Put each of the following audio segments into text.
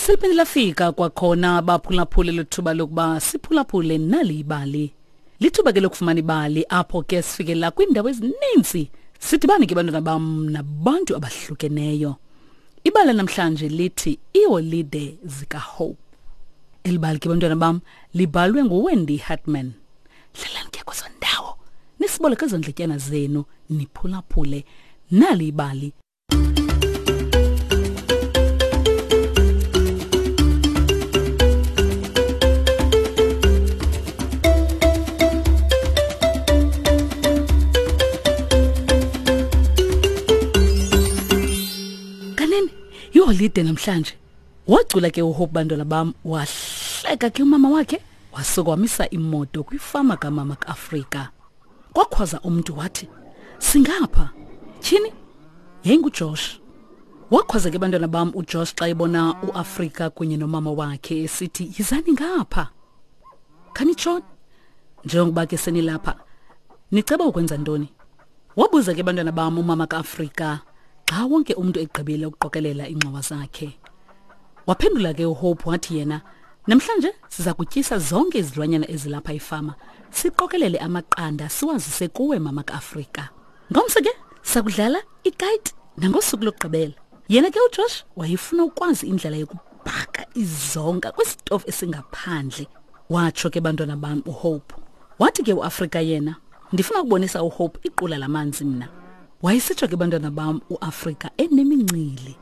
Seliphinde lafika kwakhona baphulaphule lethuba lokuba siphulaphule nali ibali. Lithuba ke lokufumana ibali apho ke sifikela kwiindawo ezininzi sidibane ke bantwana bam nabantu abahlukeneyo. Ibali namhlanje lithi iiholide zikaHope. Eli bali ke bantwana bam libhalwe nguWendy Hartman. Hlalani ke kwezo ndawo nisiboleke ezo ndletyana zenu niphulaphule nali ibali. Kanene yiholide namhlanje. Wacula ke uHope bantwana bam wahleka ke umama wakhe wasuka wamisa imoto kwifama kamama kaAfrika. Kwakhwaza umntu wathi, "Singapha." Tyhini? YayinguJosh. Wakhwaza ke bantwana bam uJosh xa ebona uAfrika kunye nomama wakhe esithi, "Yizani ngapha." Khanitshoni. Njengokuba ke senilapha, niceba ukwenza ntoni? Wabuza ke bantwana bam umama kaAfrika xa wonke umntu egqibile ukuqokelela iingxowa zakhe. Waphendula ke uHope wathi yena, Namhlanje siza kutyisa zonke izilwanyana ezilapha efama, siqokelele amaqanda siwazise kuwe mama kaAfrika. Ngomso ke sakudlala ikite nangosuku lokugqibela. Yena ke uJosh wayefuna ukwazi indlela yokubhaka izonka kwisitofu esingaphandle. Watsho ke bantwana bam uHope. Wathi ke uAfrika yena, ndifuna ukubonisa uHope iqula lamanzi mna. Wayesitsho ke bantwana bam uAfrika enemincili.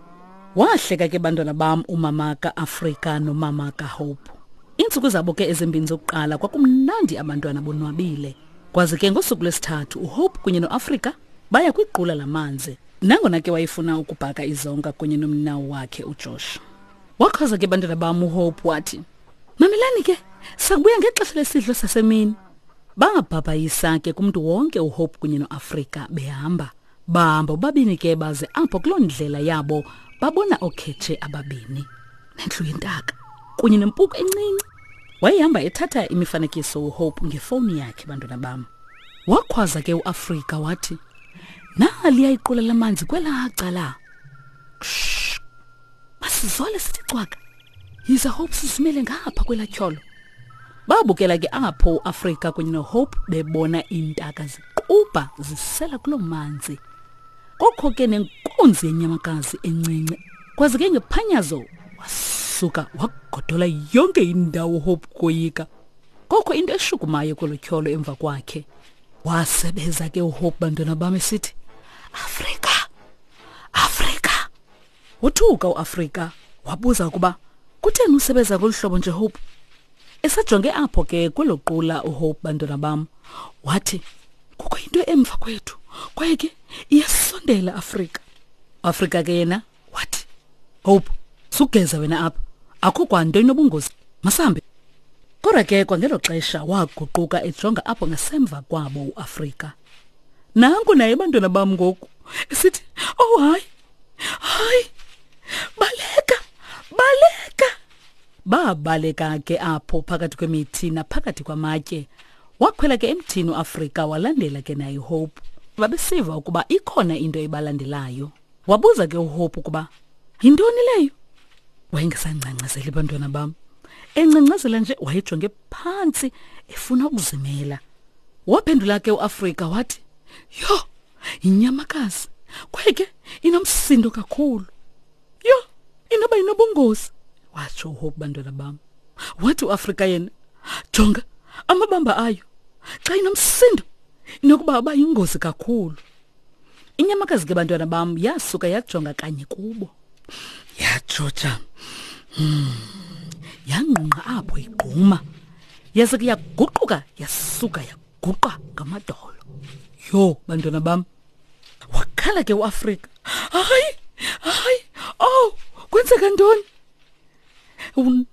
Wahleka ke bantwana bam umama kaAfrika nomama kaHope. Iintsuku zabo ke ezimbini zokuqala kwakumnandi abantwana bonwabile. Kwaze ke ngosuku lwesithathu uHope kunye noAfrika baya kwiqula lamanzi. Nangona ke wayefuna ukubhaka izonka kunye nomnawo wakhe uJosh. Wakhwaza ke bantwana bam uHope wathi, Mamelani ke, sakubuya ngexesha lesidlo sasemini. Bangabhabhayisa ke kumntu wonke uHope kunye noAfrika behamba. Bahamba bobabini ke baze apho kuloo ndlela yabo babona ookhetshe ababini nendlu yentaka kunye nempuku encinci. Wayehamba ethatha imifanekiso uHope ngefowuni yakhe bantwana bam. Wakhwaza ke uAfrika wathi, Naliya iqula lamanzi kwelaa cala. Shh! Masizole sithi cwaka. Yiza Hope sizimele ngapha kwelaa tyholo. Babukela ke apho uAfrika kunye noHope bebona iintaka ziqubha zisela kuloo manzi. Kokho ke nenkunzi yenyamakazi encinci. Kwaze ke ngephanyazo wasuka wagodola yonke indawo uHope koyika. Kokho into eshukumayo kwelo tyholo emva kwakhe. Wasebeza ke uHope bantwana bam esithi, Afrika! Afrika! Wothuka uAfrika wabuza ukuba kutheni usebeza ngolu hlobo nje Hope. Esajonge apho ke kwelo qula uHope bantwana bam wathi kukho into emva kwethu kwaye ke iyasondela Afrika. Afrika ke yena wathi Hope sugeza wena apha akho kwanto inobungozi masambe. Kodwa ke kwangelo xesha waguquka ejonga apho ngasemva kwabo uAfrika. Nanku naye bantwana bam ngoku esithi oh hayi hayi baleka baleka babaleka ke apho phakathi kwemithi naphakathi kwamatye wakhwela ke emthini uAfrika walandela ke naye Hope babesiva ukuba ikhona into ebalandelayo wabuza ke uHope ukuba yintoni leyo wayengesangcangcazeli bantwana bam engcangcazela nje wayejonge phantsi efuna ukuzimela waphendula ke uAfrika wathi yho yinyamakazi kwaye ke inomsindo kakhulu yho inoba inobungozi watsho uhope bantwana bam wathi uafrika yena jonga amabamba ayo xa inomsindo inokuba aba yingozi kakhulu inyamakazi ke bantwana bam yasuka yajonga kanye kubo yajoja hmm. yangqungqa apho igquma yase ke yaguquka yasuka guqa ngamadolo yho bantwana bam wakhala ke uAfrika hayi hayi oh kwenzeka ntoni hmm,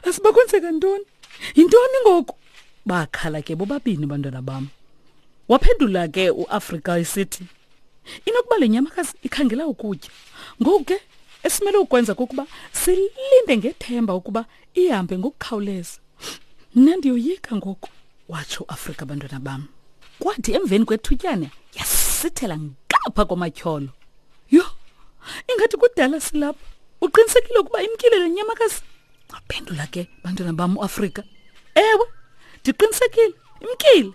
asiba kwenzeka ntoni yintoni ngoku bakhala ke bobabini bantwana bam waphendula ke uAfrika esithi inokuba le nyamakazi ikhangela ukutya ngoku ke esimele ukwenza kukuba silinde ngethemba ukuba ihambe ngokukhawuleza mna ndiyoyika ngoku watsho uAfrika bantwana bam kwathi emveni kwethutyana yasithela ngapha kwamatyholo yho ingathi kudala silapha Uqinisekile ukuba imkile le nyamakazi? Waphendula ke bantwana bam uAfrika. Ewe, ndiqinisekile, imkile.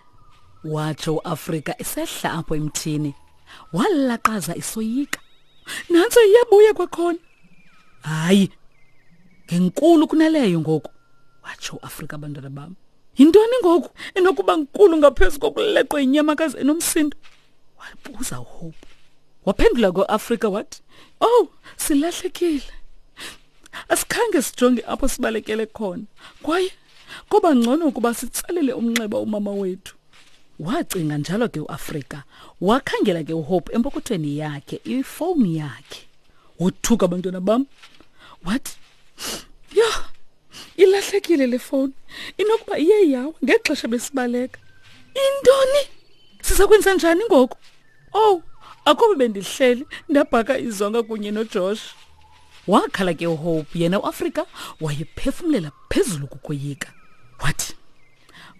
Watsho uAfrika esehla apho emthini. Walaqaza isoyika. Nantso iyabuya kwakhona. Hayi, ngenkulu kunaleyo ngoku, watsho uAfrika bantwana bam. Yintoni ngoku enokuba nkulu ngaphezu kokuleqwa yinyamakazi enomsindo? Wabuza uHope. Waphendula koAfrika wathi, "Oh, silahlekile. Asikhange sijonge apho sibalekele khona. Kwaye koba ngcono ukuba sitsalele umnxeba umama wethu." Wacinga njalo ke uAfrika. Wakhangela ke uHope empokothweni yakhe ifowuni yakhe. Wothuka abantwana bam. Wathi, "Yho, ilahlekile le fowuni. Inokuba iye yawa ngexesha besibaleka." Intoni? Siza kwenza njani ngoku? Owu, akube bendihleli ndabhaka izonka kunye noJosh. Wakhala ke uHope, yena uAfrika wayephefumlela phezulu kukoyika. Wathi,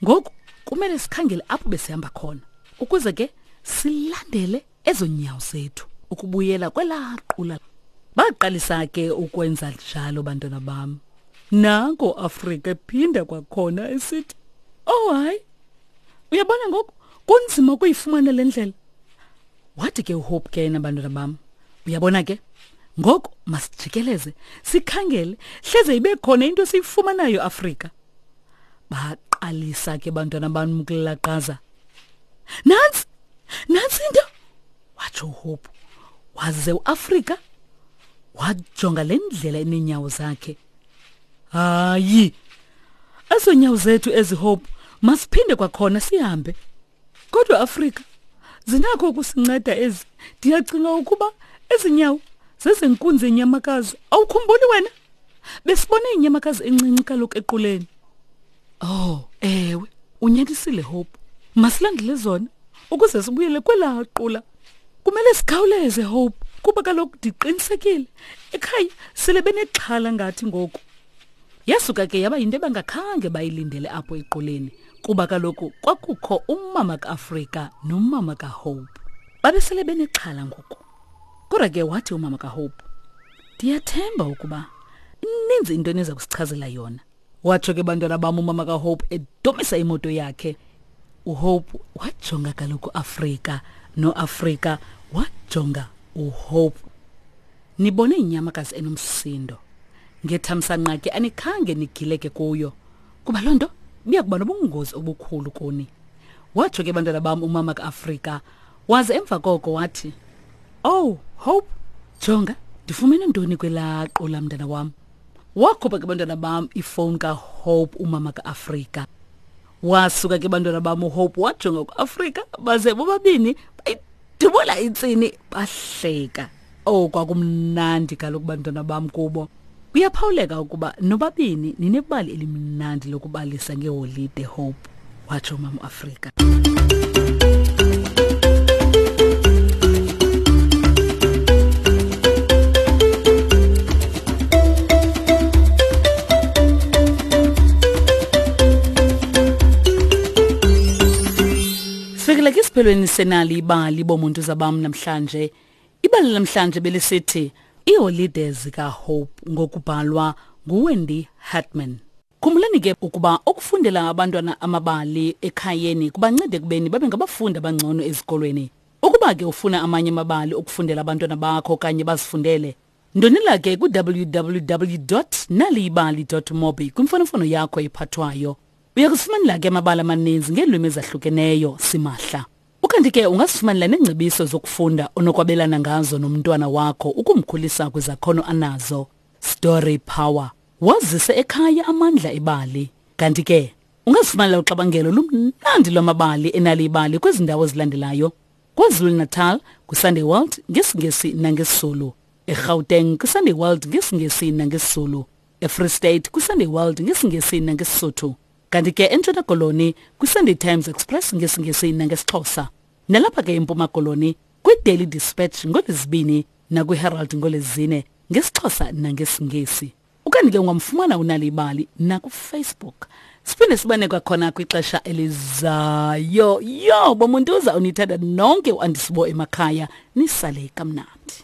ngoku kumele sikhangele apho besihamba khona ukuze ke silandele ezo nyawo zethu ukubuyela kwelaa qula. Baqalisa ke ukwenza njalo bantwana bam. Nanko Afrika ephinda kwakhona esithi, "Oh hayi, uyabona ngoku kunzima ukuyifumana le ndlela." Wathi ke uHope ke yena, bantwana bam, uyabona ke ngoku masijikeleze sikhangele hleze ibe khona into esiyifumanayo Afrika. Baqalisa ke bantwana bam ukulaqaza. Nantsi, nantsi into, watsho uHope. Waze uAfrika wajonga le ndlela eneenyawo zakhe. Hayi, ezo nyawo zethu ezi Hope, masiphinde kwakhona sihambe. Kodwa Afrika, zinakho ukusinceda ezi. Ndiyacinga ukuba ezi nyawo zezenkunzi yenyamakazi. Awukhumbuli wena? Besibone inyamakazi encinci kaloku equleni. Oh, ewe, unyanisile Hope. Masilandele zona ukuze sibuyele kwelaa qula. Kumele sikhawuleze Hope, kuba kaloku ndiqinisekile ekhaya sele benexhala ngathi ngoku. Yasuka ke yaba yinto ebangakhange bayilindele apho equleni, kuba kaloku kwakukho umama kaAfrika nomama kaHope. Babesele benexhala ngoku. Kodwa ke wathi umama kaHope, ndiyathemba ukuba ininzi into eniza kusichazela yona. Watsho ke bantwana bam umama kaHope edomisa imoto yakhe. UHope wajonga kaloku Afrika, noAfrika wajonga uHope. Nibone inyamakazi enomsindo. Ngethamsanqa ke anikhange nigileke kuyo, kuba loo nto ibiya kuba nobungozi obukhulu kuni. Watsho ke bantwana bam umama kaAfrika, waze emva koko wathi, Oh, Hope, jonga, ndifumene ntoni kwelaa qula mntana wam. Wakhupha ke bantwana bam ifowuni kaHope umama kaAfrika. Wasuka ke bantwana bam uHope wajonga kuAfrika, baze bobabini bayidubula intsini bahleka. Oh, kwakumnandi kaloku bantwana bam kubo. Kuyaphawuleka ukuba nobabini ninebali elimnandi lokubalisa ngeholide Hope, watsho umama uAfrika. Sifikile ke esiphelweni senali ibali bomuntu zabam namhlanje. Ibali namhlanje belisithi iiholide zikaHope ngokubhalwa nguWendy Hartman. Khumbulani ke ukuba ukufundela abantwana amabali ekhayeni kubanceda ekubeni babe ngabafundi abangcono ezikolweni. Ukuba ke ufuna amanye amabali okufundela abantwana bakho okanye bazifundele, ndonela ke ku-www.naliyibali.mobi kwimfonomfono yakho ephathwayo. Uya kuzifumanela ke amabali amaninzi ngeelwimi ezahlukeneyo simahla. Ukanti ke ungazifumanela neengcebiso zokufunda onokwabelana ngazo nomntwana wakho ukumkhulisa kwizakhono anazo. Story Power. Wazise ekhaya amandla ebali. Kanti ke ungazifumanela uxabangelo lumnandi lwamabali enaliyibali kwezi ndawo zilandelayo. KwaZulu-Natal kwiSunday World ngesiNgesi nangesiZulu. EGauteng kwiSunday World ngesiNgesi nangesiZulu. EFree State kwiSunday World ngesiNgesi nangeSisotho. Kanti ke eNtshona Koloni kwiSunday Times Express ngesiNgesi nangesiXhosa. Nalapha ke eMpuma Koloni kwiDaily Dispatch ngoLwezibini nakwiHerald ngoLwezine ngesiXhosa nangesiNgesi. Ukanti ke ungamfumana uNal'ibali nakuFacebook. Siphinde sibane kwakhona kwixesha elizayo. Yo, bomuntuza unithanda nonke uAndisibo emakhaya, nisale kamnandi.